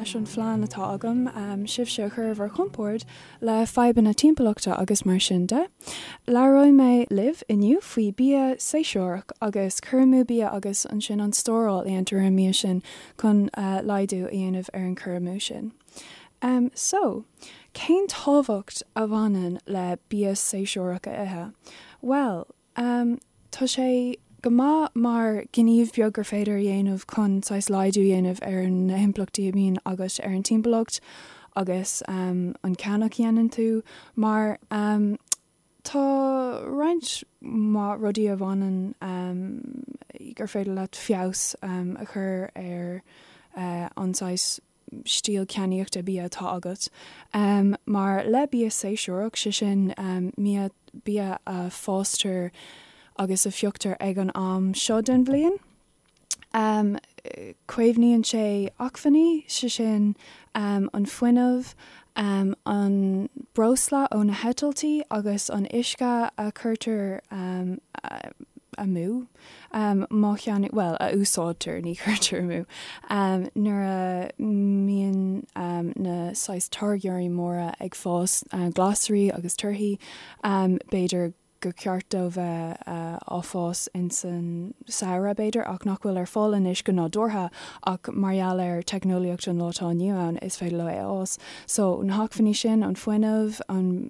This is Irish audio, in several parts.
leis an phlean atá agam sibhse a chur ar bhur chompord le fadhbanna timpeallachta agus mar sin de. Labhróidh mé libh inniu faoi bia séasúrach agus cur amú bia agus ansin an stóráil a dhéantar ar an mbia sin chun laghdú a dhéanamh ar an cur amú sin. So, cén tábhacht a bhaineann le bia séasúrach a ithe? Bhuel, Tá sé go maith mar ghníomh beag gur féidir a dhéanamh chun saghas laghdú a dhéanamh ar na himpleachtaí a bhíonn agat ar an timpeallacht agus an ceannach a dhéanann tú mar tá roinnt mhaith rudaí a bhaineann gur féidir leat feabhas a chur ar an saghas stíl ceannaíochta bia atá agat. Mar le bia séasúrach, sé sin bia a fástar agus a phioctar ag an am seo den bhliain, caomhnaíonn sé acmhainní, sé sin an fuinneamh, an breosla ó na heitiltí agus an uisce a chuirtear amú. Má cheannaíonn, bhuel, a úsáidtear, ní chuirtear amú, nuair a mbíonn na saghas táirgeoirí móra ag fás glasraí agus torthaí, b'fhéidir gur ceart dó bheith á fás ins an samhradh, b'fhéidir, ach nach bhfuil ar fáil anois go nádúrtha ach mar gheall ar teicneolaíocht an lá atá inniu ann, is féidir leo é a fhás. So, na hacmhainní sin, an fuinneamh, an,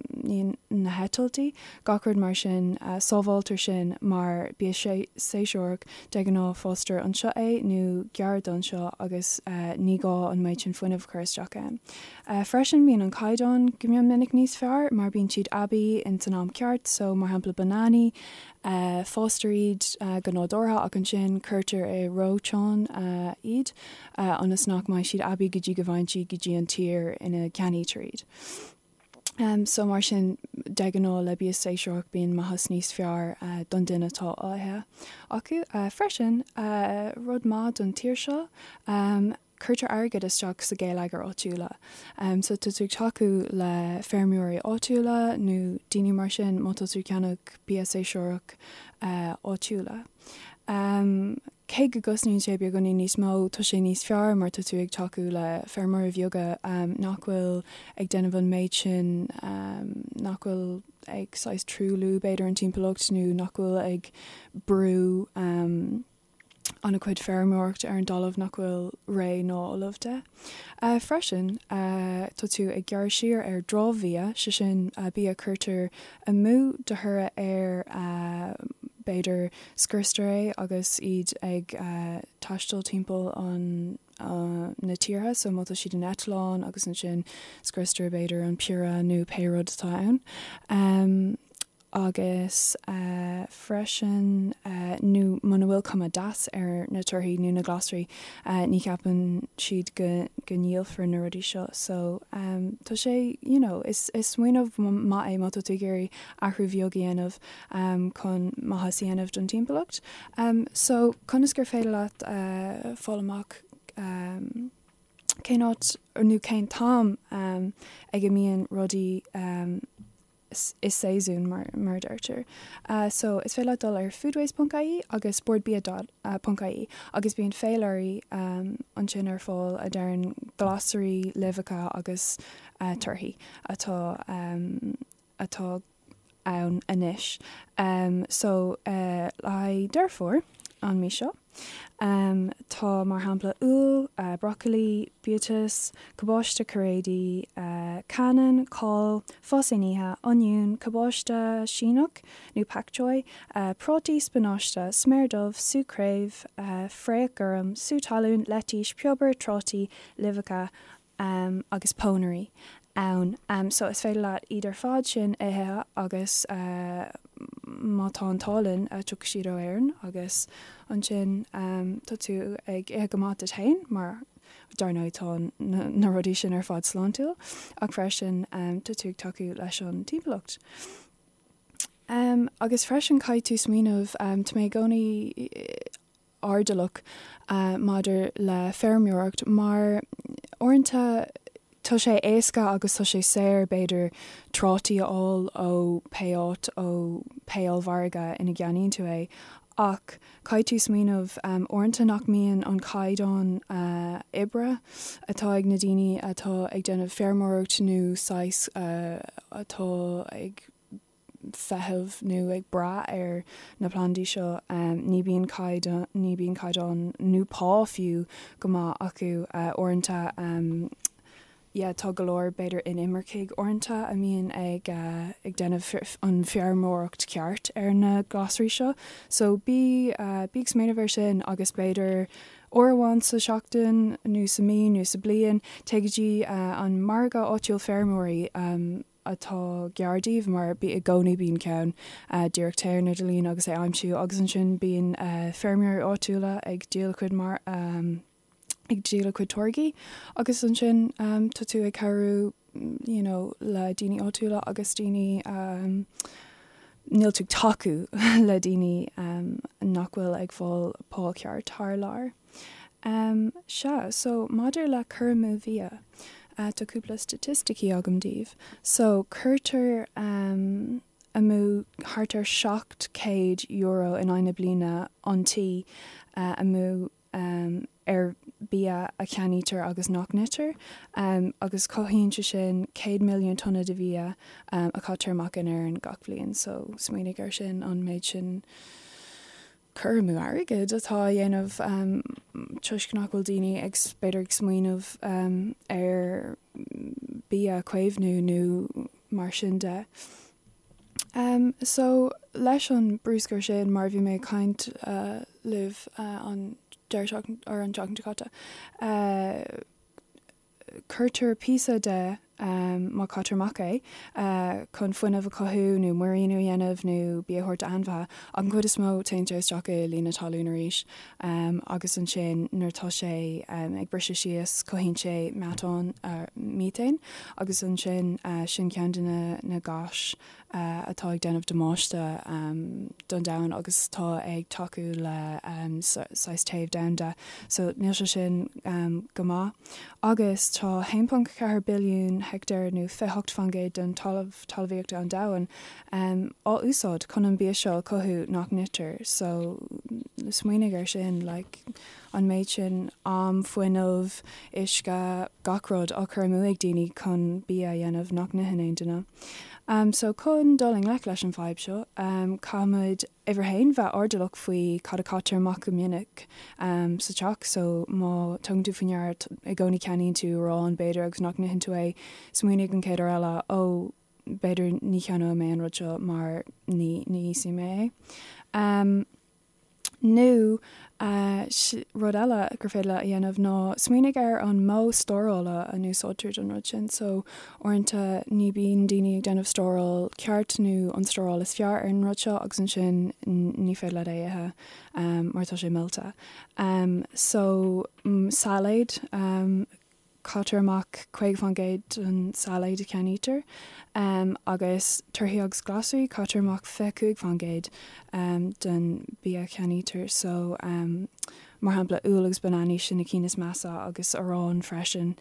na heitiltí, Gach rud mar sin, sábháiltear sin mar bia séasúrach, de ghnáth fástar anseo é nó gar d'anseo agus ní gá an méid sin fuinnimh a chur isteach ann. Freisin bíonn an caighdeán go mion minic níos fearr mar bíonn siad aibí ins an am ceart so mar shampla bananaí, fástar iad go nádúrtha ach ansin cuirtear i reoiteán iad ionas nach mbeidh siad aibí go dtí go bhfaigheann siad go dtí an tír ina gceannaítear iad. So mar sin, de ghnáth le bia séasúrach bíonn maitheas níos fearr don duine atá á ithe acu. Freisin, rud maith don tír seo, cuirtear airgead isteach sa gheilleagar áitiúla. So tá tú ag tacú le feirmeoirí áitiúla nó daoine mar sin má tá tú ag ceannach bia séasúrach áitiúla. Cé go gcosnaíonn sé beagáinín níos mó, tá sé níos fearr mar tá tú ag tacú le feirmeoirí bheaga nach bhfuil ag déanamh an méid sin, nach bhfuil ag saghas truailliú b'fhéidir an timpeallacht nó nach bhfuil ag brú an-chuid feirmeoireacht ar an dtalamh nach bhfuil réidh ná ullamh de. Freisin, tá tú ag gearradh siar ar dramhbhia, sé sin bia a cuirtear amú de thoradh ar b'fhéidir scriostar é agus iad ag taisteal timpeall an na tíortha so má tá siad in eitleán agus ansin scriostar b'fhéidir an piorra nó pé rud atá ann. Agus freisin nó muna bhfuil cuma deas ar na torthaí nó na glasraí ní cheapann siad go go ndíolfar na rudaí seo so tá sé you know is is smaoineamh maith é má tá tú ag iarraidh athrú bheag a dhéanamh chun maitheas a dhéanamh don timpeallacht. So conas gur féidir leat fáil amach cén áit nó cén t-am ag a mbíonn rudaí i séasún mar a deirtear. So is féidir leat dul ar foodways ponc ie agus bordbia dot ponc ie agus bíonn féilirí ansin ar fáil a deireann glasraí, luibheacha agus torthaí atá atá ann anois. So le haghaidh Deireadh Fómhair an mí seo tá mar shampla úll, brocailí, biatas, cabáiste cairéidí, cannan, cál, fás inithe, oinniún, cabáiste Síneach nó pak choi, prátaí, spionáiste, sméar dubh, sú craobh, fraoch gorm, sú talún, leitís, piobar, trátaí, luibheacha agus pónairí ann. So is féidir leat iad ar fad sin a ithe agus má tá an t-ádh linn tiocfaidh siad ó Éirinn agus ansin tá tú ag ithe go maith duit féin mar dar ndóigh tá na rudaí sin ar fad sláintiúil ach freisin tá tú ag tacú leis an timpeallacht. Agus freisin caithfidh tú smaoineamh, tá mé i gcónaí airdeallach maidir le feirmeoireacht mar uaireanta tá sé éasca agus tá sé saor b'fhéidir trátaí a fháil ó pé áit ó pé ollmhargadh ina gceannaíonn tú é. Ach caithfidh tú smaoineamh uaireanta nach mbíonn an caighdeán oibre atá ag na daoine atá ag déanamh feirmeoireacht nó saghas atá ag feitheamh nó ag brath ar na plandaí seo, ní bíonn caighdeán, ní bíonn caighdeán nó pá fiú go maith acu uaireanta. Yeah tá go leor b'fhéidir inimircigh uaireanta a mbíonn ag ag déanamh an feirmeoireacht ceart ar na glasraí seo so bí bí ag smaoineamh ar sin agus b'fhéidir uair amháin sa seachtain nó sa mí nó sa bliain téigh go dtí an margadh áitiúil feirmeoirí atá gar daoibh mar bí i gcónaí bíonn ceann díreach téigh ar an idirlíon agus é a aimsiú agus ansin bíonn feirmeoirí áitiúla ag díol a cuid mar ag díol a cuid táirgí agus ansin tá tú ag cabhrú you know le daoine áitiúla agus daoine níl tú ag tacú le daoine nach bhfuil ag fáil pá ceart thar lear. Sea, so maidir le cur amú bhia, tá cúpla staitisticí agam daoibh. So cuirtear amú thart ar €700 in aghaidh na bliana an tí amú ar bia a cheannaítear agus nach n-itear, agus cothaíonn sé sin 100 milliún tonna de bhia a chaitear amach in Éirinn gach bliain. So, smaoinigh ar sin, an méid sin cur amú airgid atá á dhéanamh toisc nach bhfuil daoine ag, b'fhéidir, ag smaoineamh ar bia a chaomhnú nó mar sin de. So, leis an bruscar sin, mar a bhí mé ag caint libh an deireadh seachtaine, or an tseachtain seo caite, cuirtear píosa de, má caitear amach é, chun fuinneamh a chothú nó muiríniú a dhéanamh nó bia a thabhairt d'ainmhithe, ach an chuid is mó téann sé isteach i líon na talún arís agus ansin nuair atá sé ag briseadh síos cothaíonn sé meatán, methane, agus ansin sin ceann de na gáis atá ag déanamh damáiste don domhan agus atá ag tacú le saghas téamh domhanda. So níl sé sin go maith. Agus tá 1.4 billiún heicteár nó 28% den talamh talmhaíochta an domhain á úsáid chun an bia seo a chothú nach n-itear. So smaoinigh ar sin, like an méid sin am, fuinneamh, uisce, gach rud á chur amú ag daoine chun bia a dhéanamh nach n-itheann aon duine. So chun dul i ngleic leis an bhfadhb seo, caithfimid uimhir a haon bheith airdeallach faoi cad a chaitear amach go minic sa teach. So má tugann tú faoi ndeara i gcónaí ceannaíonn tú arán b'fhéidir agus nach n-itheann tú é, smaoinigh an chéad uair eile, ó b'fhéidir ní cheannóidh mé an rud seo mar ní ní íosfaidh mé é. Nó rud eile gur féidir leat a dhéanamh ná smaoinigh ar an modh stórála a n-úsáidtear don rud sin. So, uaireanta ní bíonn daoine ag déanamh stóráil ceart nó an stóráil is fearr ar an rud seo agus ansin ní féidir leat é a ithe mar tá sé millte. So, sailéad. Caitear amach 50% den sailéad a cheannaítear agus torthaí agus glasraí, caitear amach 25% den bia a cheannaítear. So, mar shampla, úll agus bananaí, sin na cinn is measa agus arán freisin.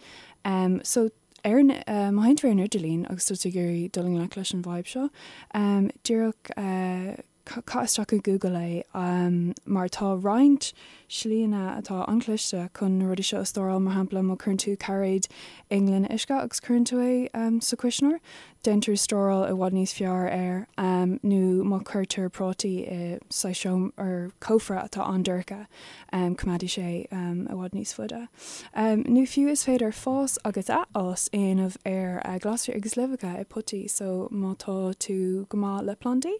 So, ar, má théann tú ar an idirlíon agus tá tú ag iarraidh dul i ngleic leis an bhfadhb seo, díreach Caith isteach i Google é mar tá roinnt slíanna atá an-chliste chun na rudaí seo a stóráil, mar shampla má chuireann tú cairéad i ngloine uisce agus cuireann tú é sa chuisneoir, déantar stóráil i bhfad níos fearr air nó má chuirtear prátaí i saghas seomra or cófra atá an-dorcha, coimeádfaidh sé i bhfad níos faide. Nó fiú is féidir fás agus athfhás a dhéanamh ar ghlasraí agus luibheacha i bpotaí so má tá tú go maith le plandaí,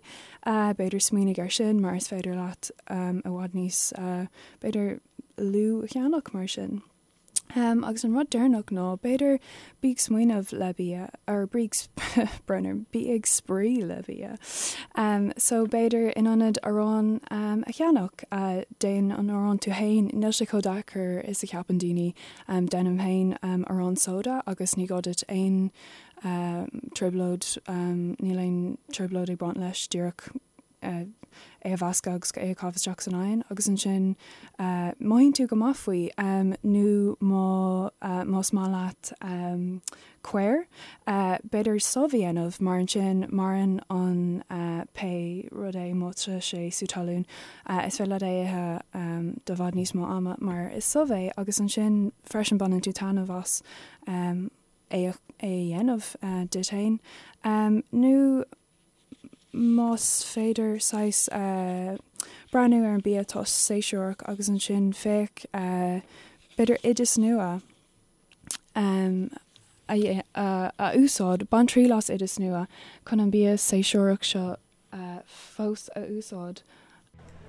b'fhéidir smaoinigh ar sin mar is féidir leat i bhfad níos, b'fhéidir, lú a cheannach mar sin. Agus an rud deireanach ná b'fhéidir bí ag smaoineamh le bia, or bí ag, brón orm, bí ag spraoi le bia. So b'fhéidir in ionad arán a cheannach, déan an arán tú fhéin, níl sé chomh deacair is a cheapann daoine. Déanaim féin arán sóda agus ní gá duit aon trioblóid, níl aon trioblóid ag baint leis, díreach é a mheascadh agus é a chaitheamh isteach san oigheann agus ansin mothaíonn tú go maith faoi. Nó má más maith leat caor, b'fhéidir subh a dhéanamh mar ansin maireann an pé rud. drochrud é má tá sé sú talún. Is féidir leat é a ithe do bhfad níos mó ama mar is subh é agus ansin freisin baineann tú taitneamh as é a dhéanamh duit féin. Nó más féidir saghas breathnú ar an bia atá séasúrach agus ansin féach b'fhéidir oideas nua a úsáid, bain triail as oideas nua chun an bia séasúrach seo fós a úsáid.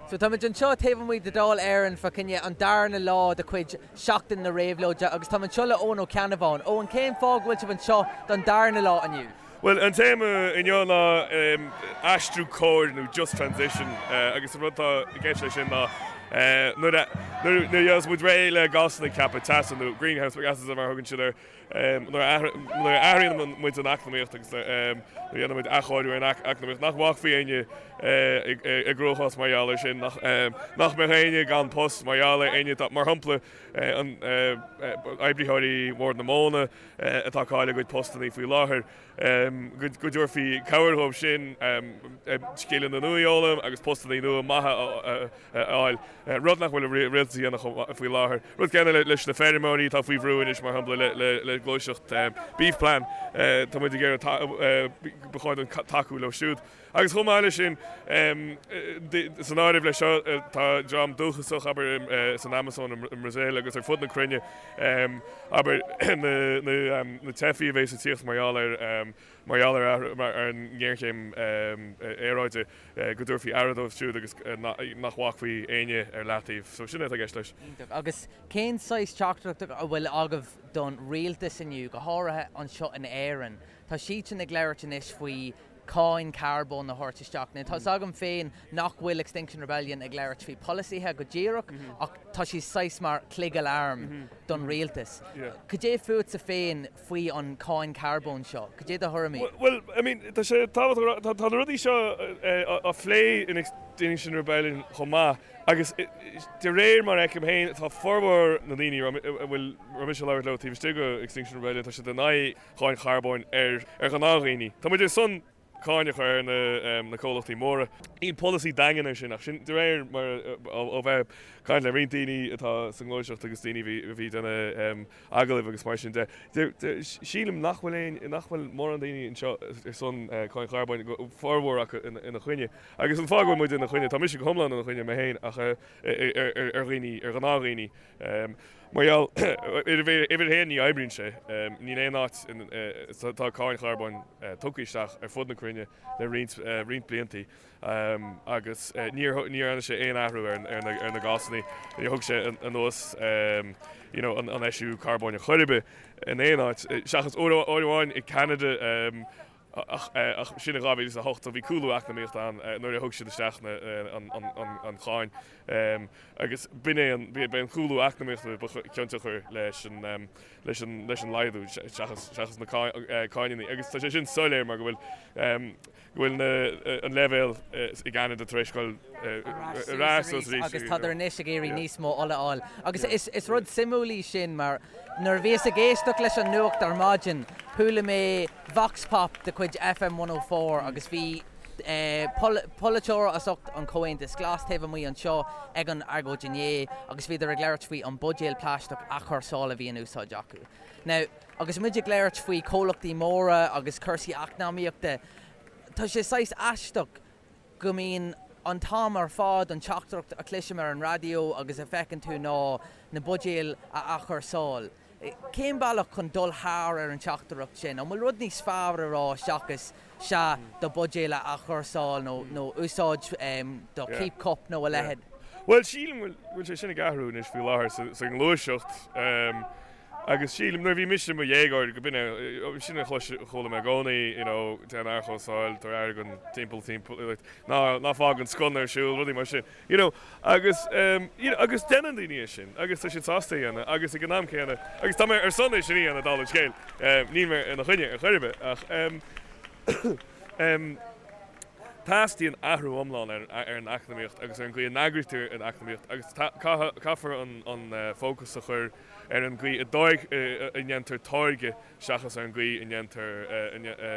So táimid anseo taobh amuigh de Dáil Éireann fá choinne an darna lá de chuid Seachtain na Réabhlóide agus táim anseo le Eoin Ó Ceannabháin. Eoin, cén fáth go bhfuil sibh anseo don darna lá inniu? Bhuel, an téama inniu ná aistriú cóir nó just transition agus an rud atá i gceist leis sin ná nuair a nuair a gheobhas muid réidh le gásanna ceaptha teasa nó greenhouse gases mar a thugann siad air, Nuair a athraíonn muid an eacnamaíocht agus nuair a dhéanann muid athchóiriú ar an eacnamaíocht, nach bhfágfaí éinne i gcruachás mar gheall air sin, nach mbeadh éinne gan post mar gheall ar éinne, mar shampla, oibritheoirí Bhord na Móna atá ag cailleadh a gcuid postanna faoi láthair, go dtabharfaí cabhair dhóibh sin scileanna nua a fhoghlaim agus postanna nua maithe a a fháil, rud nach bhfuil an rialtas a dhéanamh faoi láthair. Rud céanna leis na feirmeoirí atá faoi bhrú anois, mar shampla le gluaiseacht Beef Plan, tá muid ag iarraidh, ba chóir dúinn tacú leo siúd. Agus chomh maith leis sin, san áireamh leis seo tá dream dúchasach, abair, san Amazon i mBrasaíl agus ar fud na cruinne, abair, na teifigh a bheas ag tíocht mar gheall ar mar gheall ar an ngéarchéim aeráide, go dtabharfaí aire dóibh siúd agus nach bhfágfaí éinne ar leataobh. So sin é atá i gceist leis. Iontach. Agus cén saghas teachtaireacht a bhfuil agaibh don rialtas inniu, go háirithe anseo in Éirinn? Tá siadsan ag labhairt anois faoi cáin carbóin a thabhairt isteach. Now tá's agam féin nach bhfuil Extinction Rebellion ag labhairt faoi polasaithe go díreach ach tá siad saghas mar chloig aláraim don rialtas. Cad é fútsa féin faoi an cáin carbóin seo? Cad é do thuairimí? Bhuel, I mean, tá sé tábhachtach, tá na rudaí seo á phlé in Extinction Rebellion chomh maith agus de réir mar a fheicim féin, tá formhór na ndaoine a bhfuil, raibh mise ag labhairt leo taobh istigh de Extinction Rebellion, tá siad in aghaidh cháin charbóin ar ghnáthdhaoine. Tá muid ar son cáin a chur ar na comhlachtaí móra. Níl polasaí daingean air sin ach sin de réir mar ó bheith ag caint le roinnt daoine atá sa ngluaiseacht agus daoine a bhí ag déanamh agallaimh agus mar sin de. Sílim nach bhfuil aon, nach bhfuil mórán daoine anseo ar son cáin charbóin, formhór acu ina choinne. Agus an fáth go bhfuil muid ina choinne, tá mise go hiomlán ina choinne mé féin ach ar dhaoine, ar ghnáthdhaoine. Mar gheall, uimhir a haon, ní oibríonn sé. Níl aon áit, tá cáin charbóin tugtha isteach ar fud na cruinne le roinnt, roinnt bliantaí agus níor, níor dhearna sé aon athrú ar na gásanna, níor thug sé anuas you know an eisiú carbóin ar chor ar bith in aon áit, seachas uair amháin i Canada, Ach sin in 2008, so bhí cúlú eacnamaíochta ann nuair a thug siad isteach an cháin. Agus b'in é an, b'é an cúlú eacnamaíochta ba chionsiocair leis an, leis an, leis an laghdú seachas, seachas na cáineanna. Agus tá sé sin soiléir mar go bhfuil, go bhfuil na, an leibhéal i gCeanada tar éis dul ar ais suas arís. Agus tádar anois ag iarraidh níos mó ola a fháil. Agus is rud suimiúil í sin mar nuair a bhíos ag éisteacht leis an nuacht ar maidin, chuala mé, Vox Pop de chuid FM 104 agus bhí polaiteoir as ucht an Chomhaontas Glas taobh amuigh anseo ag an agóid inné agus bhíodar ag labhairt faoi an buidéal plaisteach athchúrsála a bhí in úsáid acu. Now, agus muid ag labhairt faoi chomhlachtaí móra agus cúrsaí eacnamaíochta, tá sé saghas aisteach go mbíonn an t-am ar fad an teachtaireacht a chloisim ar an raidió agus a feiceann tú ná na buidéil a athchúrsáil. Cén bealach chun dul thar ar an teachtaireacht sin? An bhfuil rud níos fearr a rá seachas sea, do bhuidéal a athchúrsáil nó nó úsáid do keep cup nó a leithéid? Bhuel, sílim go bhfuil sé sin ag athrú anois faoi láthair sa ngluaiseacht agus sílim nuair a bhí mise i mo dhéagóir go b'in é sin a chuala mé i gcónaí, you know, déan athchúrsáil, tabhair aire don timpeall timpeall, like, ná ná fág an sconna ar siúl, rudaí mar sin. You know, agus, you know, agus déanann daoine é sin agus tá siad sásta é a dhéanamh agus ag an am céanna, agus tá mé ar son é sin a dhéanamh dála an scéil, níl mé ina choinne ar chor ar bith ach, em, em, Teastaíonn athrú iomlán ar an eacnamaíocht agus ar an gcaoi a n-eagraítear an eacnamaíocht agus caithfear an fócas a chur ar an gcaoi a ndéantar táirge seachas ar an gcaoi a ndéantar,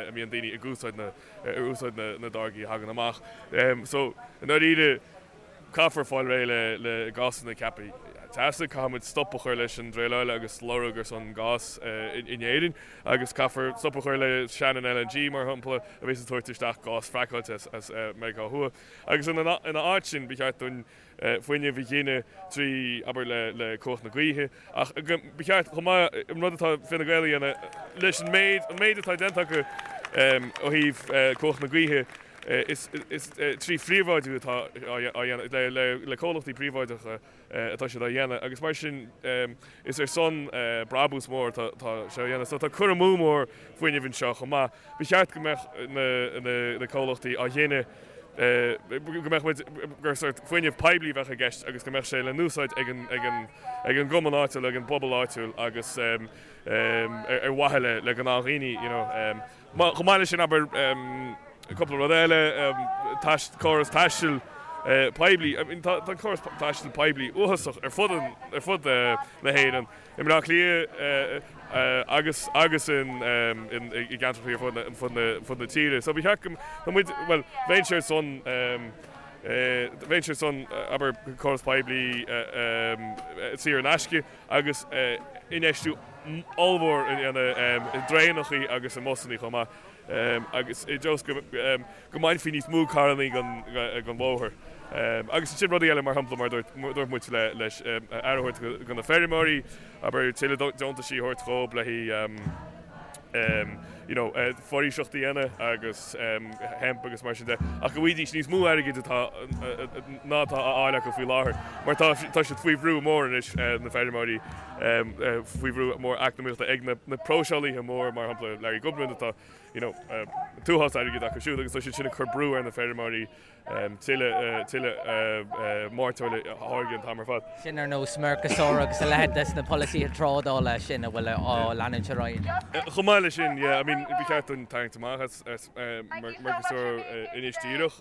a mbíonn daoine ag úsáid na, ar úsáid na dtáirgí a thagann amach. So, i ndáiríre, Caithfear fáil réidh le gásanna ceaptha teasa, caithfimid stop a chur leis an druileáil agus lorg ar son gás in Éirinn agus caithfear stop a chur le Shannon LNG, mar shampla, a bhíos ag tabhairt isteach gás fraiceáilte as Meiriceá Thuaidh. Agus ina áit sin, ba cheart dúinn fuinneamh a ghineadh trí, abair, le cumhacht na gaoithe. Ach ba cheart chomh maith an rud atá Fine Gael a dhéanamh leis an méid, an méid atá déanta acu ó thaobh cumhacht na gaoithe, Is trí phríobháidiú atá á dhéanamh, le comhlachtaí príobháideacha atá siad á dhéanamh agus mar sin is ar son brabús mór atá sé á dhéanamh. So tá cur amú mór fuinnimh anseo chomh maith. Ba cheart go mbeadh na comhlachtaí á ghineadh, go mbeadh muid, gur sórt fuinneamh poiblí a bheadh i gceist agus go mbeadh sé le n-úsáid ag an gcumann áitiúil, ag an bpobal áitiúil agus ar mhaithe le gnáthdhaoine, you know. Chomh maith leis sin, abair, cúpla rud eile, córas taistil poiblí, I mean tá an córas taistil poiblí uafásach ar fud ar fud na hÉireann, i mBleá Cliath agus agus in i gceantracha ar fud na fud na fud na tíre. So ba cheart go tá muid, bhuel, bheinnse ar son bheinnse ar son, abair, córas poiblí saor in aisce agus infheistiú ollmhór a dhéanamh i dtraenachaí agus i mbusannaí chomh maith agus i dtreo is go mbainfí níos mó carrannaí den bhóthar. Agus ansin rudaí eile, mar shampla, mar a dúirt muid leis aire a thabhairt do na feirmeoirí, abair tuilleadh deontaisí a thabhairt dhóibh le haghaidh you know, foraoiseacht a dhéanamh agus hemp agus mar sin de, ach go bhfaighidís níos mó airgid atá ná atá á fháil acu faoi láthair, mar tá tá siad faoi bhrú mór anois, na feirmeoirí, faoi bhrú mór eacnamaíochta ag na na próiseálaithe mór, mar shampla Larry Goodman atá, you know, an t-uafás airgid acu siúd agus tá siad sin ag cur brú ar na feirmeoirí tuilleadh tuilleadh mairteoil a tháirgeadh an t-am ar fad. Sin ar nós Mercosur agus a leithéid des na polasaithe trádála sin a bhfuil á leanúint ar aghaidh. Chomh maith leis sin, yeah, I mean, ba cheart dúinn tarraingt amach as as Mercosur anois díreach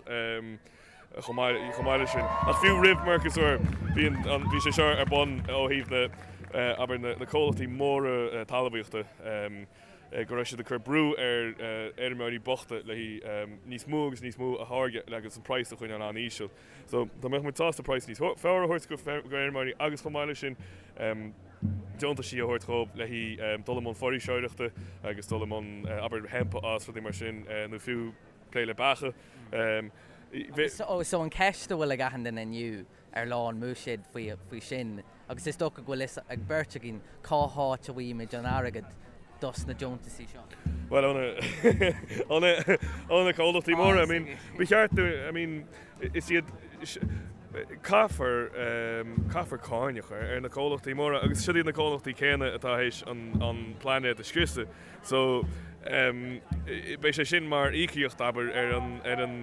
chomh maith chomh maith leis sin. Ach fiú roimh Mercosur bhí an bhí sé seo ar bun ó thaobh na abair na comhlachtaí móra talmhaíochta. go raibh siad ag cur brú ar fheirmeoirí bochta le haghaidh níos mó agus níos mó a tháirgeadh agus an praghas a choinneáil an-íseal. So dá mbeadh muid sásta praghas níos fearr a thabhairt go feirmeoirí agus chomh maith leis sin deontaisí a thabhairt dhóibh le haghaidh dul i mbun foraoiseoireachta agus dul i mbun abair hemp a fhás rudaí mar sin nó fiú plé le beacha. So an cheist a bhfuil ag achan duine inniu ar lá an mBuiséid faoi sin agus is dócha go bhfuil fhios ag beirt againn cá háit a bhfaighimid an airgead dos na deontaisí seo. Bhuel, ó na, ó na comhlachtaí móra, I mean, ba cheart dúinn, I mean, is iad, caithfear, caithfear cáin a chur ar na comhlachtaí móra agus siod iad na comhlachtaí céanna atá théis an, an pláinéad a scriosadh. So, beidh sé sin mar íocaíocht, abair, ar an, ar an,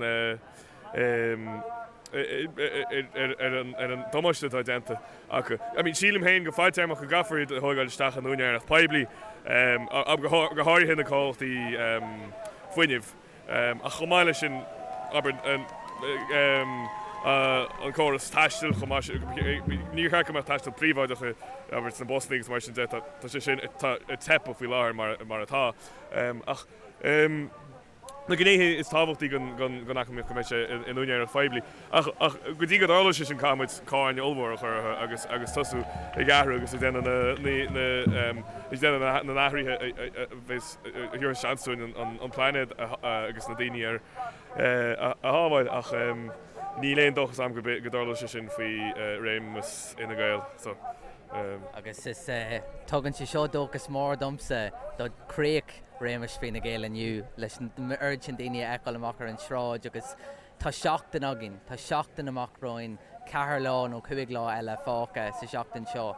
ar an damáiste atá déanta acu. I mean, sílim féin go fadtéarmach go gcaithfear iad a thógáil isteach in úinéireacht poiblí, go háirithe na comhlachtaí fuinnimh. Ach chomh maith leis sin, abair, an córas taistil chomh maith, níor cheart go mbeadh taisteal príobháideach, abair, sna busanna agus mar sin de, tá sé sin ag teipeadh faoi láthair mar atá. Ach. na gnéithe is tábhachtaí den eacnamaíocht go mbeidh sé in úinéireacht phoiblí. Ach go dtí go dtarlóidh sé sin caithfidh muid cáin ollmhór a chur orthu agus agus tosú ag athrú agus ag déanamh na ag déanamh na n-athruithe a bheas a thabharfas seans dúinn an pláinéad agus na daoine air a shábháil. Ach níl aon dóchas agam go dtarlóidh sé sin faoi réimeas Fhine Gael. So. Agus is tugann sé seo dóchas mór domsa do chríoch réimeas Fine Gael inniu leis an oiread sin daoine a fheiceáil amach ar an sráid agus tá seachtain againn, tá seachtain amach romhainn, ceathair lá nó chúig lá eile fágtha sa seachtain seo.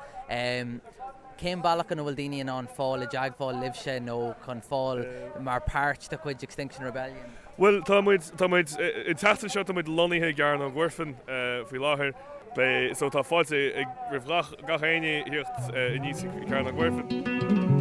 Cén bealach ina bhfuil daoine in ann fáil i dteagmháil libhse nó chun fáil mar páirt de chuid Extinction Rebellion? Bhuel, tá muid, tá muid, an tseachtain seo tá muid lonnaithe i gCearnóg Mhuirfean faoi láthair. Beidh, so tá fáilte ag, roimh gach, gach éinne thíocht aníos chuig Cearnóg Mhuirfean.